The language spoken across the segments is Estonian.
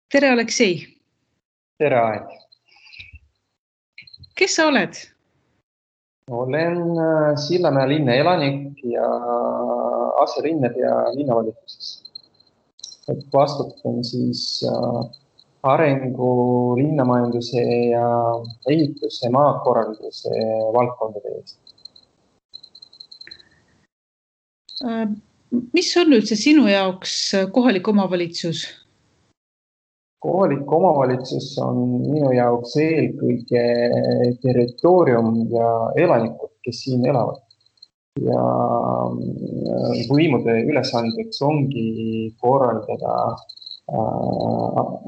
Tere, Aleksei! Tere, Aet! Kes sa oled? Olen Sillamäe linna elanik ja aselinnapea linnavalitsuses. Vastutan arengu, linnamajanduse ja ehituse, maakorralduse valdkondade eest. Mis on üldse sinu jaoks kohalik omavalitsus? Kohalik omavalitsus on minu jaoks eelkõige territoorium ja elanikud, kes siin elavad. Ja võimude ülesandeks ongi korraldada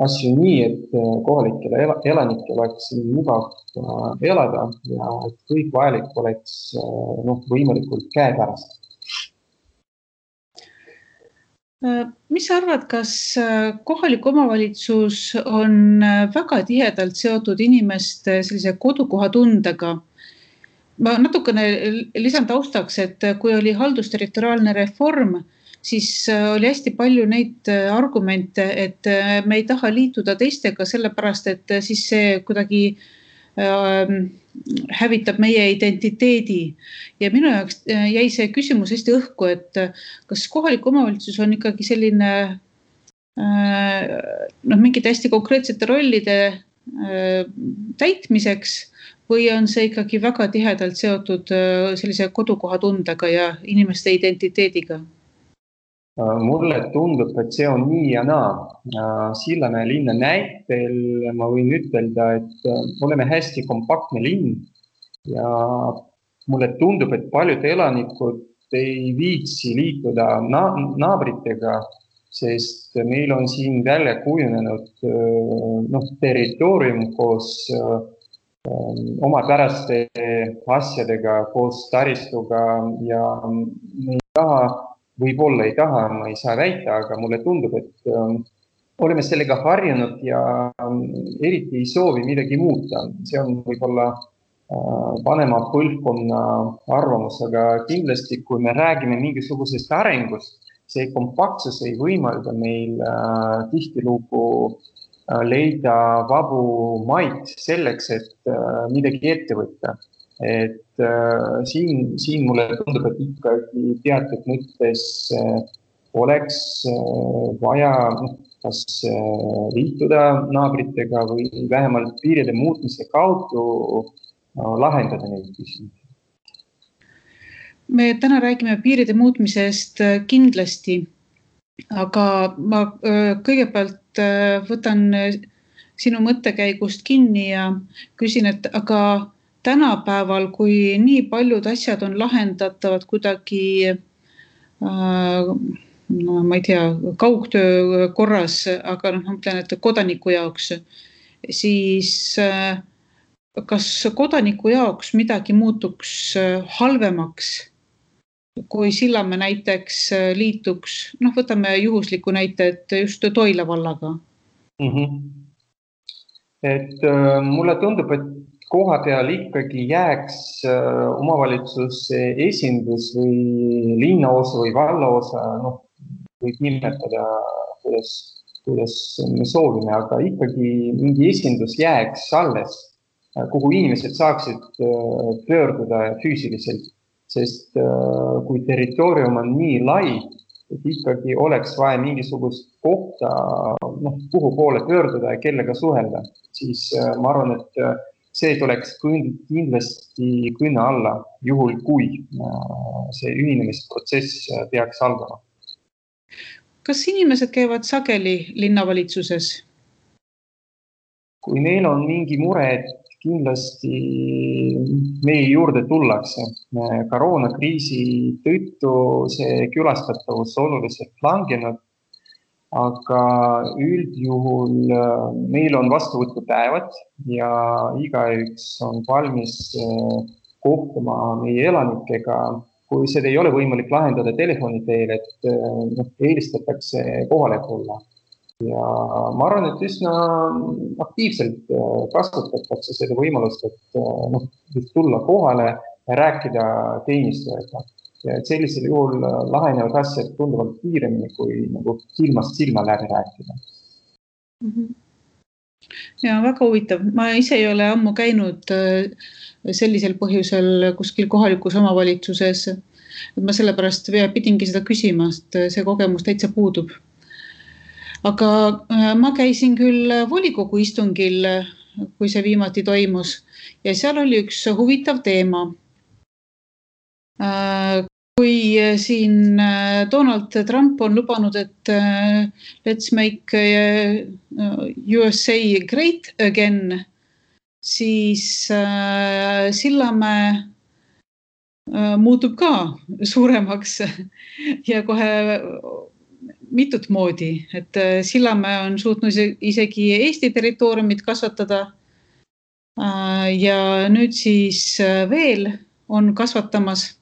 asju nii, et kohalikele elanikele oleks mugav elada ja et kõik vajalik oleks võimalikult käepärast. Mis sa arvad, kas kohalik omavalitsus on väga tihedalt seotud inimeste sellise kodukohatundega? Ma natukene lisan taustaks, et kui oli haldusterritoriaalne reform, siis oli hästi palju neid argumente, et me ei taha liituda teistega sellepärast, et siis see kuidagi hävitab meie identiteedi. Ja minu jaoks jäi see küsimus hästi õhku, et kas kohalik omavalitsus on ikkagi selline mingite hästi konkreetsete rollide täitmiseks või on see ikkagi väga tihedalt seotud sellise kodukohatundega ja inimeste identiteediga? Mulle tundub, et see on nii ja naa. Sillamäe linna näitel ma võin ütelda, et oleme hästi kompaktne linn ja mulle tundub, et paljud elanikud ei viitsi liituda naabritega, sest meil on siin välja kujunenud territoorium koos omapäraste asjadega, koos taristuga ja me ei taha, võib-olla ei taha, ma ei saa väita, aga mulle tundub, et oleme sellega harjunud ja eriti ei soovi midagi muuta. See on võib-olla vanema põlvkonna arvamus, aga kindlasti, kui me räägime mingisugusest arengust, see kompaktsus ei võimalda meil tihtilugu leida vabu maid selleks, et midagi ette võtta. Et siin mulle tundub, et ikkagi teatud mõttes oleks vaja kas liituda naabritega või vähemalt piiride muutmise kaudu lahendada neid küsimusi. Me täna räägime piiride muutmisest kindlasti, aga ma kõigepealt võtan sinu mõttekäigust kinni ja küsin, et aga tänapäeval, kui nii paljud asjad on lahendatavad kuidagi, ma ei tea, kaugtöö korras, aga ma mõtlen, et kodaniku jaoks, siis kas kodaniku jaoks midagi muutuks halvemaks, kui Sillamäe näiteks liituks, võtame juhusliku näite, et just Toila vallaga? Et mulle tundub, et koha peal ikkagi jääks omavalitsuse esindus või linnaosa või vallaosa, võib nimetada, kuidas me soovime, aga ikkagi mingi esindus jääks alles, kuhu inimesed saaksid pöörduda füüsiliselt, sest kui territoorium on nii lai, et ikkagi oleks vaja mingisugust kohta, kuhu poole pöörduda ja kellega suhelda, siis ma arvan, et see tuleks kindlasti kõne alla, juhul kui see ühinemisprotsess peaks algama. Kas inimesed käivad sageli linnavalitsuses? Kui neil on mingi mure, et kindlasti meie juurde tullakse. Koroonakriisi tõttu see külastatavus oluliselt langenud, aga üldjuhul meil on vastuvõtupäevad ja igaüks on valmis kohtuma meie elanikega. Kui seda ei ole võimalik lahendada telefoni teel, et eelistatakse kohale tulla. Ja ma arvan, et üsna aktiivselt kasutatakse seda võimalust, et tulla kohale ja rääkida teenistujaga. Ja sellisel juhul lahenevad asjad tunduvalt kiiremini, kui silmast silma läbi rääkida. Mhm. Ja väga huvitav. Ma ise ei ole ammu käinud sellisel põhjusel kuskil kohalikus omavalitsuses. Ma sellepärast pidingi seda küsima, sest see kogemus täitsa puudub. Aga ma käisin küll volikogu istungil, kui see viimati toimus, ja seal oli üks huvitav teema. Kui siin Donald Trump on lubanud, et let's make USA great again, siis Sillamäe muutub ka suuremaks ja kohe mitut moodi, et Sillamäe on suutnud isegi Eesti territooriumit kasvatada ja nüüd siis veel on kasvatamas.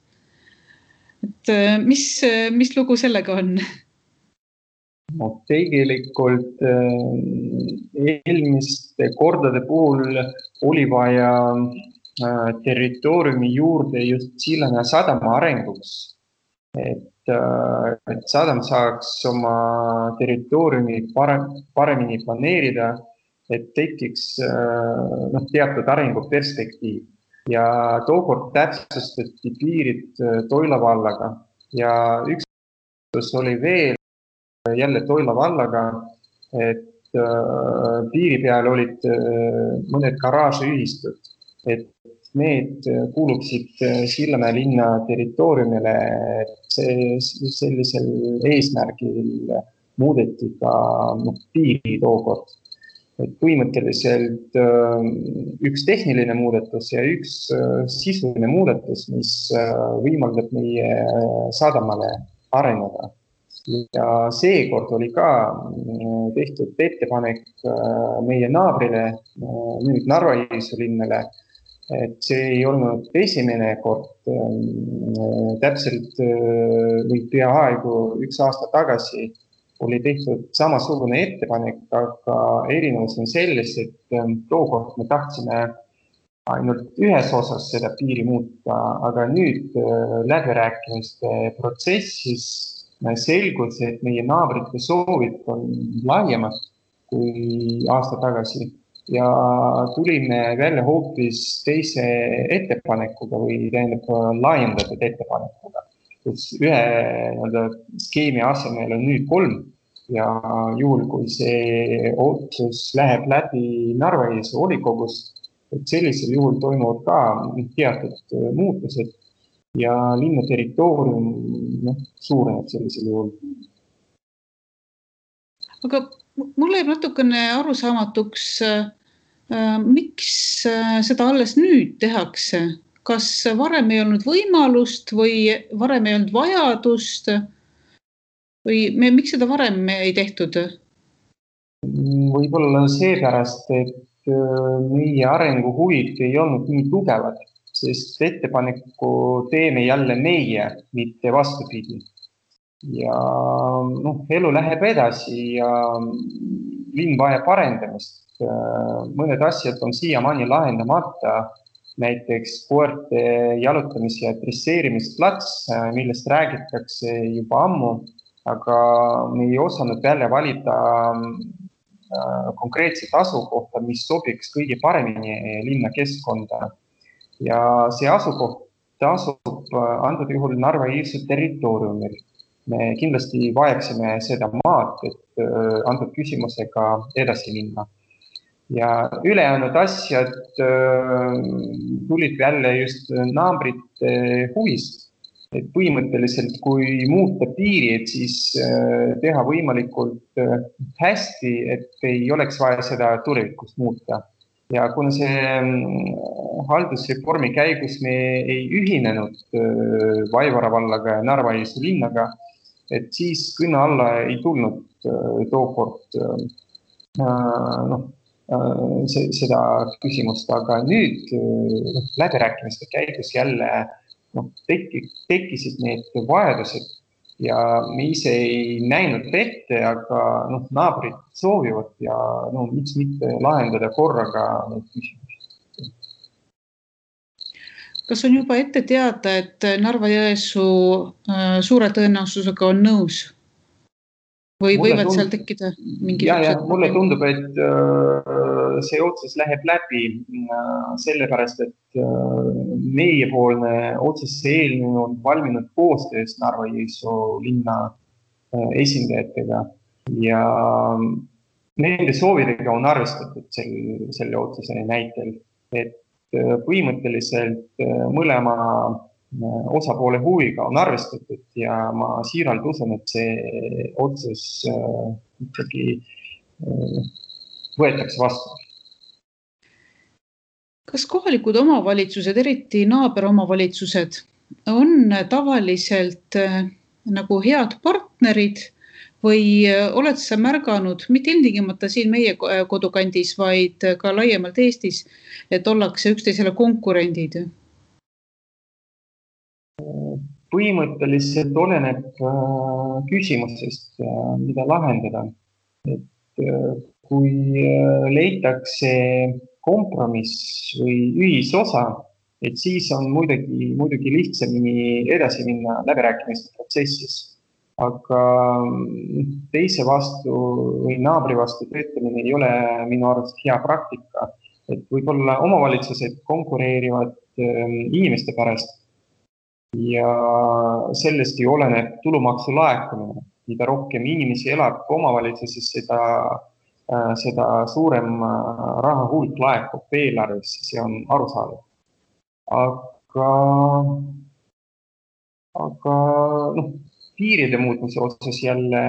Et mis lugu sellega on? No, tegelikult eelmiste kordade puhul oli vaja territooriumi juurde just Sillamäe sadama arenguks, et sadam saaks oma territooriumi paremini planeerida, et tekiks teatud arenguperspektiiv. Ja tookord täpsustati piirid Toila vallaga ja üks oli veel jälle Toila vallaga, et piiri peal olid mõned garaažiühistud, et need kuuluksid Sillamäe linna territooriumile, et sellisel eesmärgil muudeti ka piiri tookord. Et põhimõtteliselt üks tehniline muudatus ja üks sisuline muudatus, mis võimaldab meie sadamale areneda. Ja seekord oli ka tehtud ettepanek meie naabrile, nüüd Narva-Jõesuu linnale, et see ei olnud esimene kord, täpselt või peaaegu 1 aasta tagasi oli tehtud samasugune ettepanek, aga erinevus on selles, et tookord me tahtsime ainult ühes osas seda piiri muuta, aga nüüd läbirääkimiste protsessis selgus, et meie naabrite soovid on laiemad kui aasta tagasi ja tulime välja hoopis teise ettepanekuga või laiendatud ettepanekuga, kus ühe skeemi asemel on nüüd 3 ja juhul, kui see otsus läheb läbi Narva-Jõesuu volikogus, et sellisel juhul toimuvad ka teatud muutused ja linna territoorium suureneb sellisel juhul. Aga mulle jääb natukene arusaamatuks, miks seda alles nüüd tehakse? Kas varem ei olnud võimalust või varem ei olnud vajadust või miks seda varem ei tehtud? Võib-olla seepärast, et meie arenguhuvid ei olnud nii tugevad, sest ettepaneku teeme jälle meie, mitte vastupidi. Ja elu läheb edasi ja linn vajab arendamist. Mõned asjad on siiamaani lahendamata, näiteks koerte jalutamis- ja dresseerimisplats, millest räägitakse juba ammu, aga me ei osanud välja valida konkreetset asukohta, mis sobiks kõige paremini linna keskkonda. Ja see asukoht asub antud juhul Narva-Jõesuu territooriumil. Me kindlasti vajaksime seda maad, et antud küsimusega edasi minna. Ja ülejäänud asjad tulid välja just naabrite huvist. Et põhimõtteliselt, kui muuta piiri, et siis teha võimalikult hästi, et ei oleks vaja seda tulevikus muuta. Ja kuna see haldusreformi käigus me ei ühinenud Vaivara vallaga ja Narva-Jõesuu linnaga, et siis kõne alla ei tulnud tookord seda küsimust, aga nüüd läbirääkimiste käigus jälle tekkisid need vajadused ja me ise ei näinud ette, aga naabrid soovivad ja miks mitte lahendada korraga need küsimused. Kas on juba ette teada, et Narva-Jõesuu suure tõenäosusega on nõus? või võivad seal tekkida mingisugused mulle tundub, et see otsus läheb läbi sellepärast, et meiepoolne otsuse eelnõu on valminud koostöös Narva-Jõesuu linna esindajatega ja nende soovidega on arvestatud selle otsuse näitel, et põhimõtteliselt mõlema osapoole huviga on arvestatud ja ma siiralt usun, et see otsus ikkagi võetakse vastu. Kas kohalikud omavalitsused, eriti naaberomavalitsused, on tavaliselt nagu head partnerid või oled sa märganud, mitte ilmtingimata siin meie kodukandis, vaid ka laiemalt Eestis, et ollakse üksteisele konkurendid? Põhimõtteliselt oleneb küsimusest, mida lahendada. Et kui leitakse kompromiss või ühisosa, et siis on muidugi lihtsamini edasi minna läbirääkimiste protsessis. Aga teise vastu või naabri vastu töötamine ei ole minu arust hea praktika. Et võib-olla omavalitsused konkureerivad inimeste pärast ja sellest ju oleneb tulumaksu laekumine. Mida rohkem inimesi elab omavalitsuses, seda suurem raha hulk laekub eelarvesse, see on arusaadav. Aga piiride muutmise osas jälle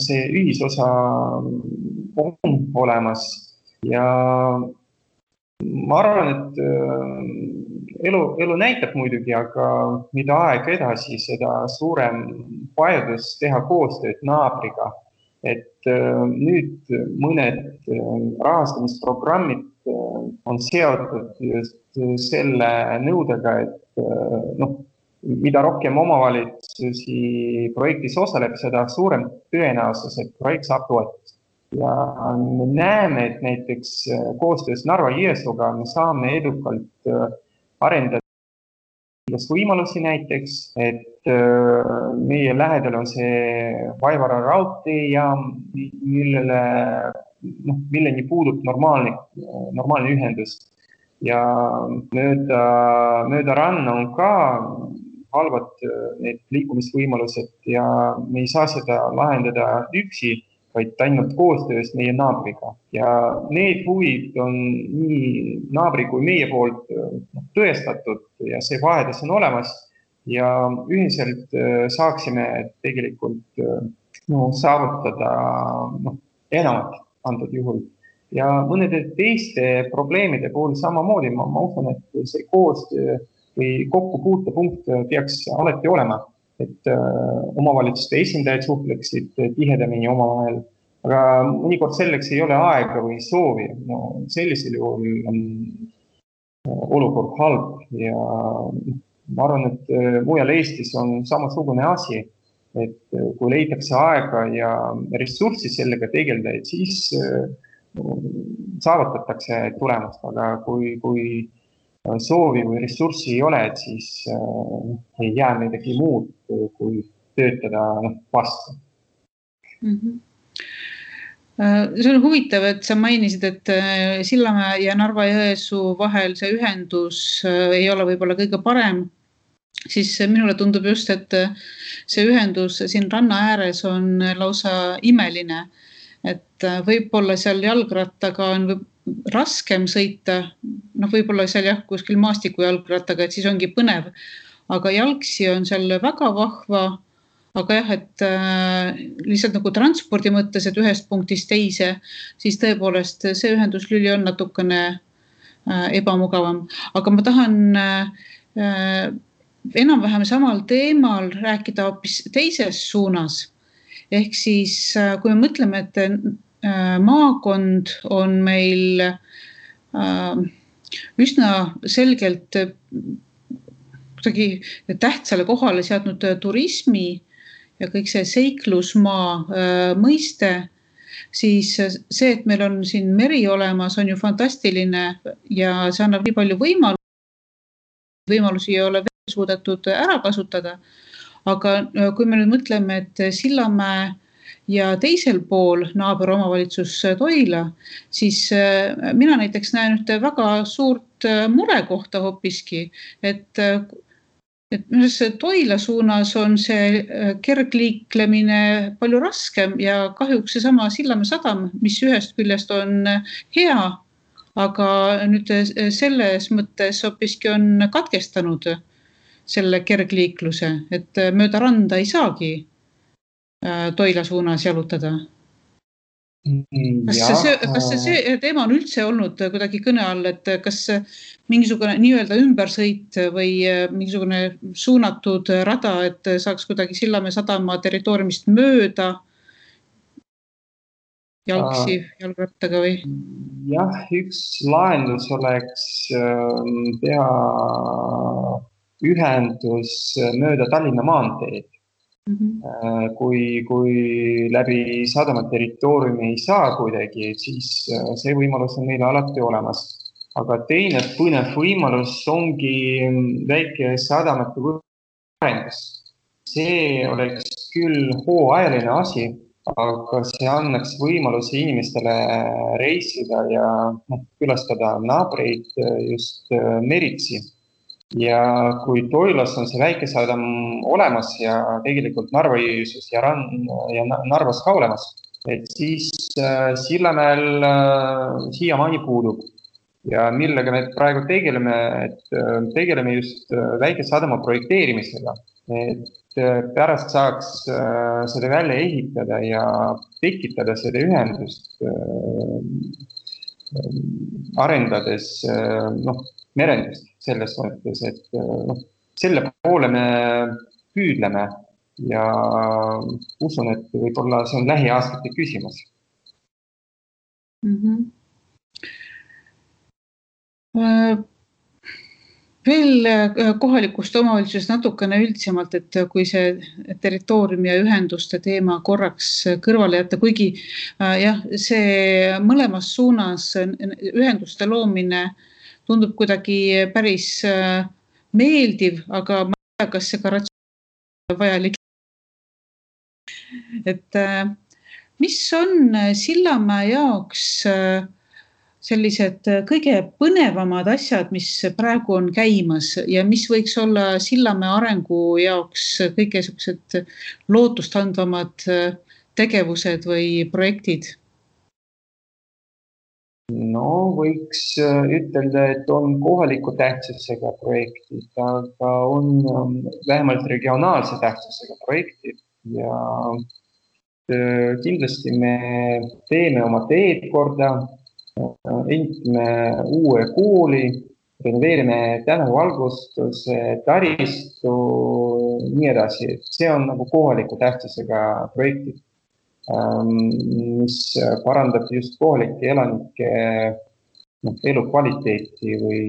see ühisosa on olemas ja ma arvan, et elu näitab muidugi, aga mida aeg edasi, seda suurem vajadus teha koostööd naabriga. Et nüüd mõned rahastamisprogrammid on seotud just selle nõudega, et mida rohkem omavalitsusi projektis osaleb, seda suurem tõenäosus, et projekt saab toetust. Ja me näeme, et näiteks koostöös Narva-Jõesuuga me saame edukalt arendada võimalusi näiteks, et meie lähedal on see Vaivara raudteejaam, milleni puudub normaalne ühendus. Ja mööda ranna on ka halvad need liikumisvõimalused ja me ei saa seda lahendada üksi, vaid ainult koostöös meie naabriga. Ja need huvid on nii naabri kui meie poolt tõestatud ja see vajadus on olemas ja ühiselt saaksime tegelikult saavutada enamat antud juhul. Ja mõnede teiste probleemide puhul samamoodi ma usun, et see koostöö või kokkupuutepunkt peaks alati olema, et omavalitsuste esindajad suhtleksid tihedamini omavahel, aga mõnikord selleks ei ole aega või soovi. Sellisel juhul on olukord halb ja ma arvan, et mujal Eestis on samasugune asi, et kui leitakse aega ja ressurssi sellega tegeleda, et siis saavutatakse tulemust, aga kui soovi või ressurssi ei ole, et siis ei jää midagi muud, kui töötada vastu. See on huvitav, et sa mainisid, et Sillamäe ja Narva-Jõesuu vahel see ühendus ei ole võib-olla kõige parem, siis minule tundub just, et see ühendus siin ranna ääres on lausa imeline, et võib-olla seal jalgrattaga on raskem sõita, võib-olla seal kuskil maastiku jalgrattaga, et siis ongi põnev, aga jalgsi on seal väga vahva, aga jah, et lihtsalt nagu transpordi mõttes, et ühest punktist teise, siis tõepoolest see ühenduslüli on natukene ebamugavam, aga ma tahan enam-vähem samal teemal rääkida hoopis teises suunas. Ehk siis, kui me mõtleme, et maakond on meil üsna selgelt tähtsale kohale seadnud turismi ja kõik see seiklusmaa mõiste, siis see, et meil on siin meri olemas, on ju fantastiline ja see annab nii palju võimalusi ei ole veel suudetud ära kasutada. Aga kui me nüüd mõtleme, et Sillamäe ja teisel pool naaberomavalitsus Toila, siis mina näiteks näen ühte väga suurt murekohta hoopiski, et Toila suunas on see kergliiklemine palju raskem ja kahjuks seesama Sillamäe sadam, mis ühest küljest on hea, aga nüüd selles mõttes hoopiski on katkestanud selle kergliikluse, et mööda randa ei saagi Toila suunas jalutada. Kas see teema on üldse olnud kuidagi kõne all, et kas mingisugune nii-öelda ümbersõit või mingisugune suunatud rada, et saaks kuidagi Sillamäe sadama territooriumist mööda jalgrattaga või? Jah, üks lahendus oleks teha ühendus mööda Tallinna maanteed. Kui läbi sadama territooriumi ei saa kuidagi, siis see võimalus on meil alati olemas. Aga teine põnev võimalus ongi väike sadamate arendus. See oleks küll hooajaline asi, aga see annaks võimaluse inimestele reisida ja külastada naabreid just meritsi. Ja kui Toilas on see väike sadam olemas ja tegelikult Narva-Jõesuus ja Narvas ka olemas, et siis Sillamäel siiamaani puudub. Ja millega me praegu tegeleme just väike sadama projekteerimisega, et pärast saaks seda välja ehitada ja tekitada seda ühendust arendades merendust selles mõttes, et selle poole me püüdleme ja usun, et võib-olla see on lähiaastate küsimus. Veel kohalikust omavalitsusest natukene üldsemalt, et kui see territooriumi ja ühenduste teema korraks kõrvale jätta, kuigi jah, see mõlemas suunas ühenduste loomine tundub kuidagi päris meeldiv, aga ma ei tea, kas see ka ratsionaalselt vajalik. Et mis on Sillamäe jaoks sellised kõige põnevamad asjad, mis praegu on käimas ja mis võiks olla Sillamäe arengu jaoks kõige sellised lootustandvamad tegevused või projektid? No võiks ütelda, et on kohaliku tähtsusega projektid, aga on vähemalt regionaalse tähtsusega projektid ja kindlasti me teeme oma teed korda, ehitame uue kooli, renoveerime tänavuvalgustuse, taristu, nii edasi. See on nagu kohaliku tähtsusega projektid, mis parandab just kohalike elanike elukvaliteeti või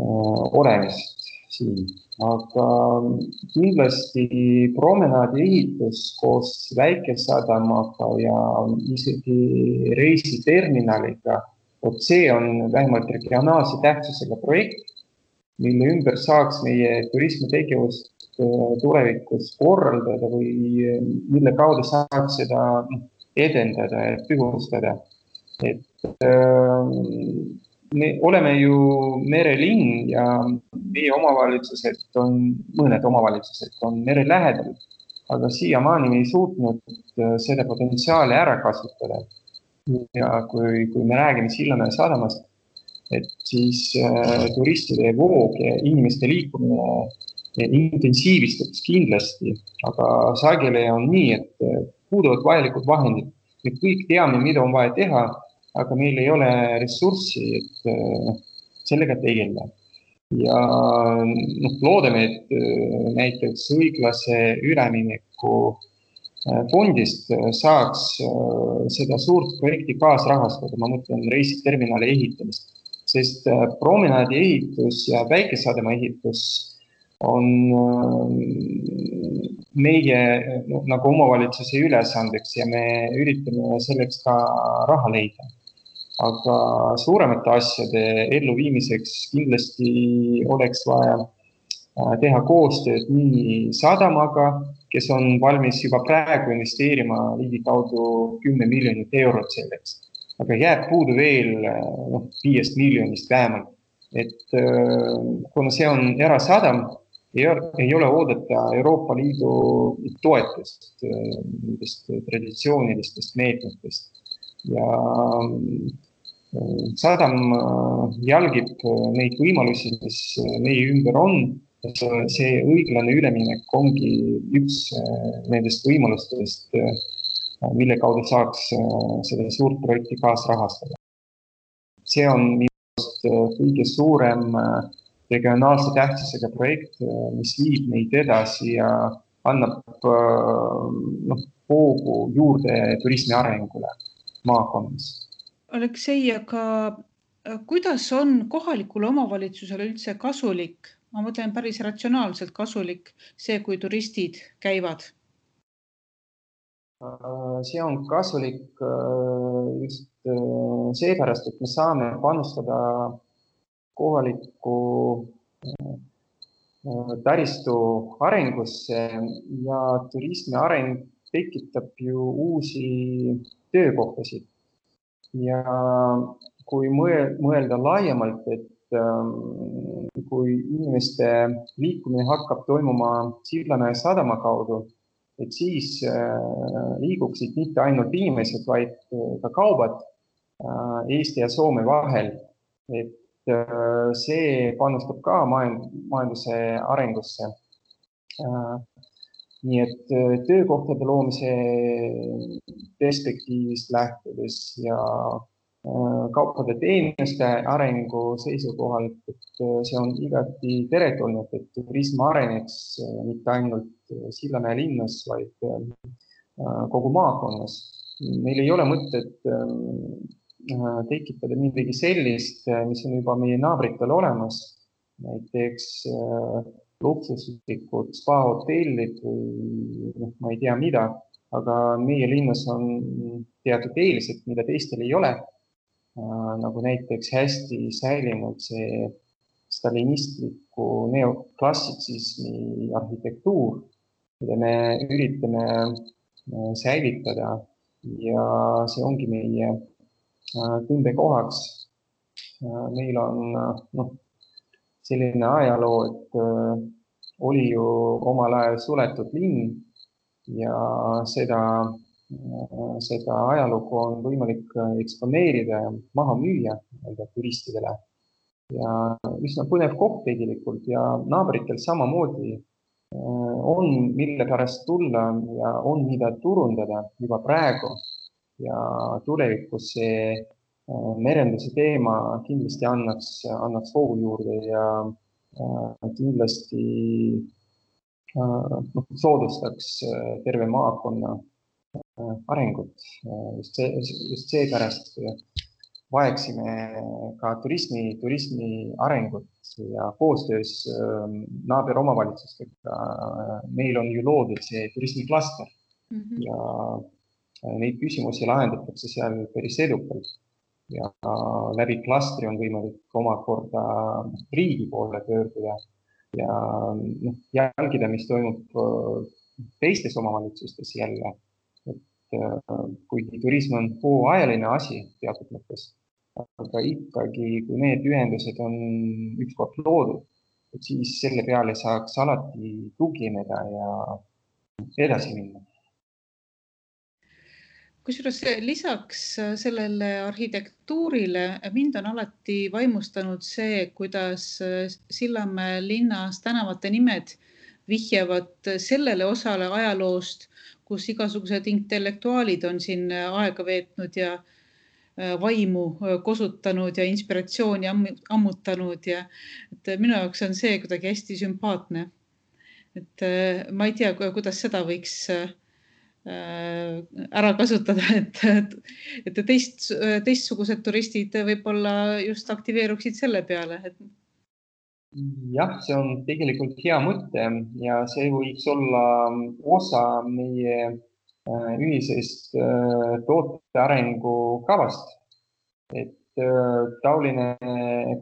olemist siin. Aga kindlasti promenaadi ehitus koos väikesadamaga ja isegi reisiterminaliga, see on vähemalt regionaalse tähtsusega projekt, mille ümber saaks meie turismitegevust tulevikus korraldada või mille kaudu saaks seda edendada ja pühustada. Et me oleme ju merelinn ja meie mõned omavalitsused on mere lähedal, aga siiamaani me ei suutnud seda potentsiaali ära kasutada. Ja kui me räägime Sillamäe sadamast, et siis turistide voog ja inimeste liikumine intensiivistuks kindlasti, aga sageli on nii, et puuduvad vajalikud vahendid. Me kõik teame, mida on vaja teha, aga meil ei ole ressurssi, et sellega tegeleda. Ja loodame, et näiteks õiglase ülemineku fondist saaks seda suurt projekti kaasrahastada, ma mõtlen reisiterminali ehitamist, sest promenaadi ehitus ja väikesadama ehitus on meie nagu omavalitsuse ülesandeks ja me üritame selleks ka raha leida. Aga suuremate asjade elluviimiseks kindlasti oleks vaja teha koostööd nii sadamaga, kes on valmis juba praegu investeerima ligikaudu 10 miljonit eurot selleks. Aga jääb puudu veel 5 miljonist vähemalt. Et kuna see on erasadam, ei ole oodata Euroopa Liidu toetust nendest traditsioonilistest meetmetest. Ja sadam jälgib neid võimalusi, mis meie ümber on. See õiglane üleminek ongi üks nendest võimalustest, mille kaudu saaks seda suurt projekti kaasrahastada. See on minu arust kõige suurem regionaalse tähtsusega projekt, mis viib meid edasi ja annab hoogu juurde turismi arengule maakonnas. Aleksei, aga kuidas on kohalikule omavalitsusele üldse kasulik, ma mõtlen päris ratsionaalselt kasulik see, kui turistid käivad? See on kasulik just seepärast, et me saame panustada kohaliku taristu arengusse ja turismi areng tekitab ju uusi töökohtasid. Ja kui mõelda laiemalt, et kui inimeste liikumine hakkab toimuma Sillamäe sadama kaudu, et siis liiguksid mitte ainult inimesed, vaid ka kaubad Eesti ja Soome vahel. Et see panustab ka majanduse arengusse. Nii et töökohtade loomise perspektiivist lähtudes ja kaupade teenuste arengu seisukohalt, et see on igati teretulnud, et turism areneks mitte ainult Sillamäe linnas, vaid kogu maakonnas. Meil ei ole mõtet tekitada midagi sellist, mis on juba meie naabritel olemas, näiteks luksuslikud spa-hotellid või ma ei tea mida, aga meie linnas on teatud eelised, mida teistel ei ole, nagu näiteks hästi säilinud see stalinistliku neoklassitsismi arhitektuur, mida me üritame säilitada ja see ongi meie tundekohaks. Meil on selline ajaloo, et oli ju omal ajal suletud linn ja seda ajalugu on võimalik eksponeerida ja maha müüa turistidele. Ja üsna põnev koht tegelikult ja naabritel samamoodi on mille pärast tulla ja on mida turundada juba praegu. Ja tulevikus see merenduse teema kindlasti annaks hoogu juurde ja kindlasti soodustaks terve maakonna arengut. Just seepärast vajaksime ka turismi arengut ja koostöös naaberomavalitsustega. Meil on ju loodud see turismiklaster ja neid küsimusi lahendatakse seal päris edukalt ja läbi klastri on võimalik omakorda riigi poole pöörduda ja jälgida, mis toimub teistes omavalitsustes jälle. Et kuigi turism on hooajaline asi teatud mõttes, aga ikkagi, kui need ühendused on ükskord loodud, et siis selle peale saaks alati tugineda ja edasi minna. Kusjuures lisaks sellele arhitektuurile mind on alati vaimustanud see, kuidas Sillamäe linnas tänavate nimed vihjavad sellele osale ajaloost, kus igasugused intellektuaalid on siin aega veetnud ja vaimu kosutanud ja inspiratsiooni ammutanud. Ja minu jaoks on see kuidagi hästi sümpaatne. Et ma ei tea, kuidas seda võiks ära kasutada, et teistsugused turistid võib-olla just aktiveeruksid selle peale. Jah, see on tegelikult hea mõte ja see võiks olla osa meie ühisest toote arengu kavast. Et taoline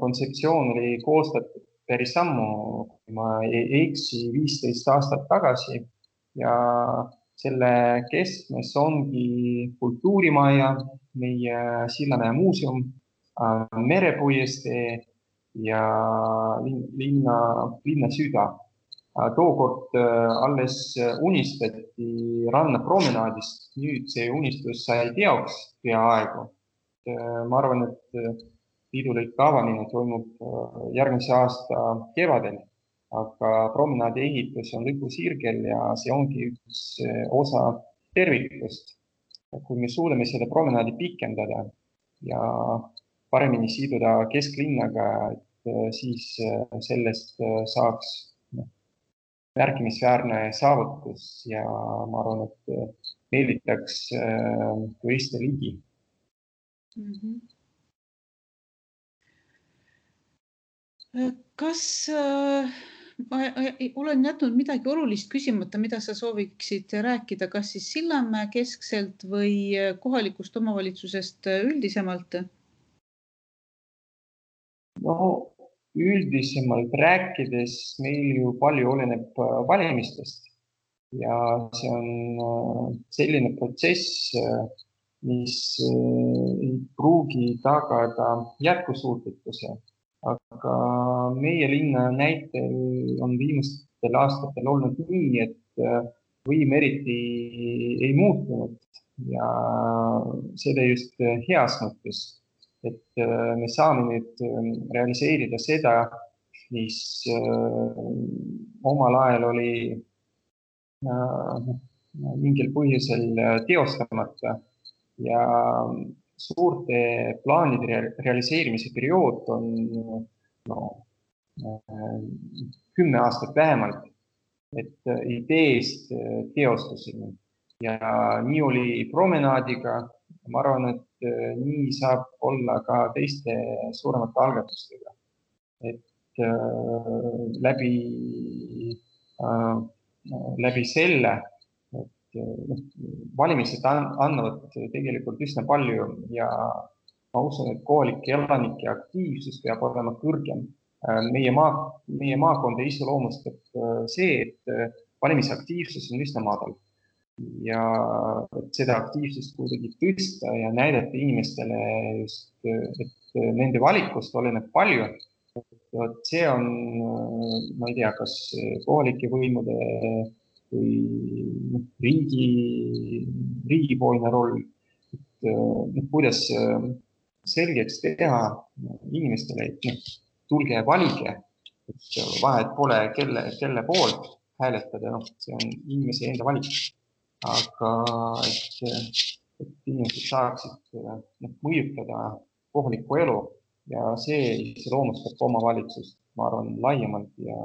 kontseptsioon oli koostatud päris sammu, kui ma ei eksi 15 aastat tagasi ja selle keskmes ongi kultuurimaja, meie Sillamäe muuseum, merepuiestee ja linna süda. Tookord alles unistati rannapromenaadist, nüüd see unistus sai teoks peaaegu. Ma arvan, et piidulõike avamine toimub järgmise aasta kevadel, aga promenaadi ehitus on lõpusirgel ja see ongi üks osa tervikust. Kui me suudame selle promenaadi pikendada ja paremini siduda kesklinnaga, siis sellest saaks märkimisväärne saavutus ja ma arvan, et meelditaks turiste ligi. Kas ma olen jätnud midagi olulist küsimata, mida sa sooviksid rääkida, kas siis Sillamäe keskselt või kohalikust omavalitsusest üldisemalt? No, üldisemalt rääkides meil ju palju oleneb valimistest ja see on selline protsess, mis ei pruugi tagada jätkusuutlikkuse, aga meie linna näitel on viimastel aastatel olnud nii, et võim eriti ei muutunud ja seda just heas mõttes, et me saame nüüd realiseerida seda, mis omal ajal oli mingil põhjusel teostamata ja suurte plaanide realiseerimise periood on 10 aastat vähemalt, et ideest teostuseni. Ja nii oli promenaadiga. Ma arvan, et nii saab olla ka teiste suuremate algatustega. Et läbi selle, et valimised annavad tegelikult üsna palju ja ma usun, et kohalike elanike aktiivsus peab olema kõrgem. Meie maakonda iseloomustab see, et valimisaktiivsus on üsna madal ja seda aktiivsust kuidagi tõsta ja näidata inimestele just, et nende valikust oleneb palju. See on, ma ei tea, kas kohalike võimude või riigipoolne roll, kuidas selgeks teha inimestele, et tulge valige, et vahet pole, kelle poolt hääletada, see on inimese enda valik. Aga et inimesed saaksid mõjutada kohalikku elu ja see iseloomustab omavalitsust, ma arvan, laiemalt ja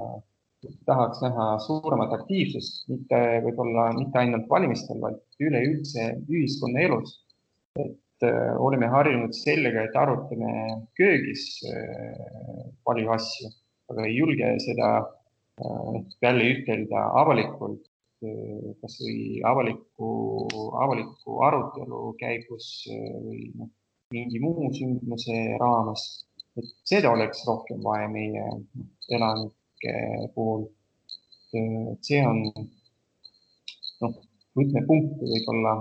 tahaks näha suuremat aktiivsust, võib-olla mitte ainult valimistel, vaid üleüldse ühiskonna elus. Et oleme harjunud sellega, et arutame köögis palju asju, aga ei julge seda jälle ütelda avalikult, kas või avaliku arutelu käigus või mingi muu sündmuse raames. Et seda oleks rohkem vaja meie elanike puhul. See on võtmepunkt võib-olla,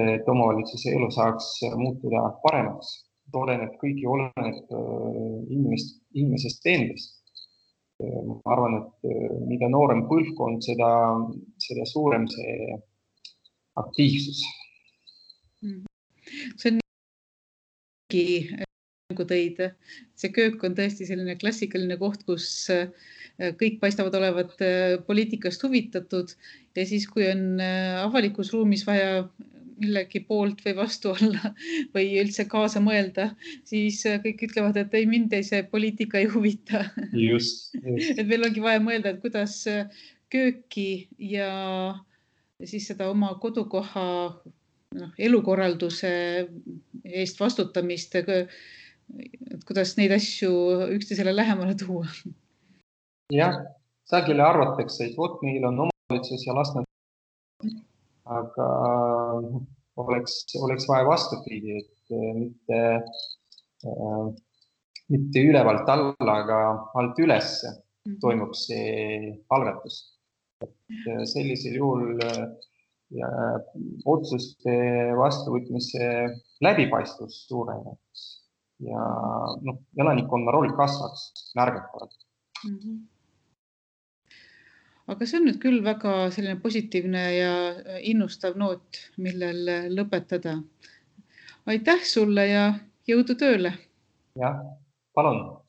et omavalitsuse elu saaks muutuda paremaks. Kõigi oleneb inimesest endast. Ma arvan, et mida noorem põlvkond, seda suurem see aktiivsus. See on nagu tõid. See köök on tõesti selline klassikaline koht, kus kõik paistavad olevat poliitikast huvitatud ja siis, kui on avalikus ruumis vaja millegi poolt või vastu olla või üldse kaasa mõelda, siis kõik ütlevad, et ei, mind see poliitika ei huvita. Just. Et meil ongi vaja mõelda, et kuidas kööki ja siis seda oma kodukoha elukorralduse eest vastutamist, et kuidas neid asju üksteisele lähemale tuua. Jah, sageli arvatakse, et vot meil on omavalitsus ja las nad, aga oleks vaja vastupidi, et mitte ülevalt alla, aga alt üles toimub see algatus. sellisel juhul ja otsuste vastuvõtmise läbipaistvus suureneks ja elanikkonna roll kasvaks märgatavalt. Aga see on nüüd küll väga selline positiivne ja innustav noot, millel lõpetada. Aitäh sulle ja jõudu tööle! Jah, palun!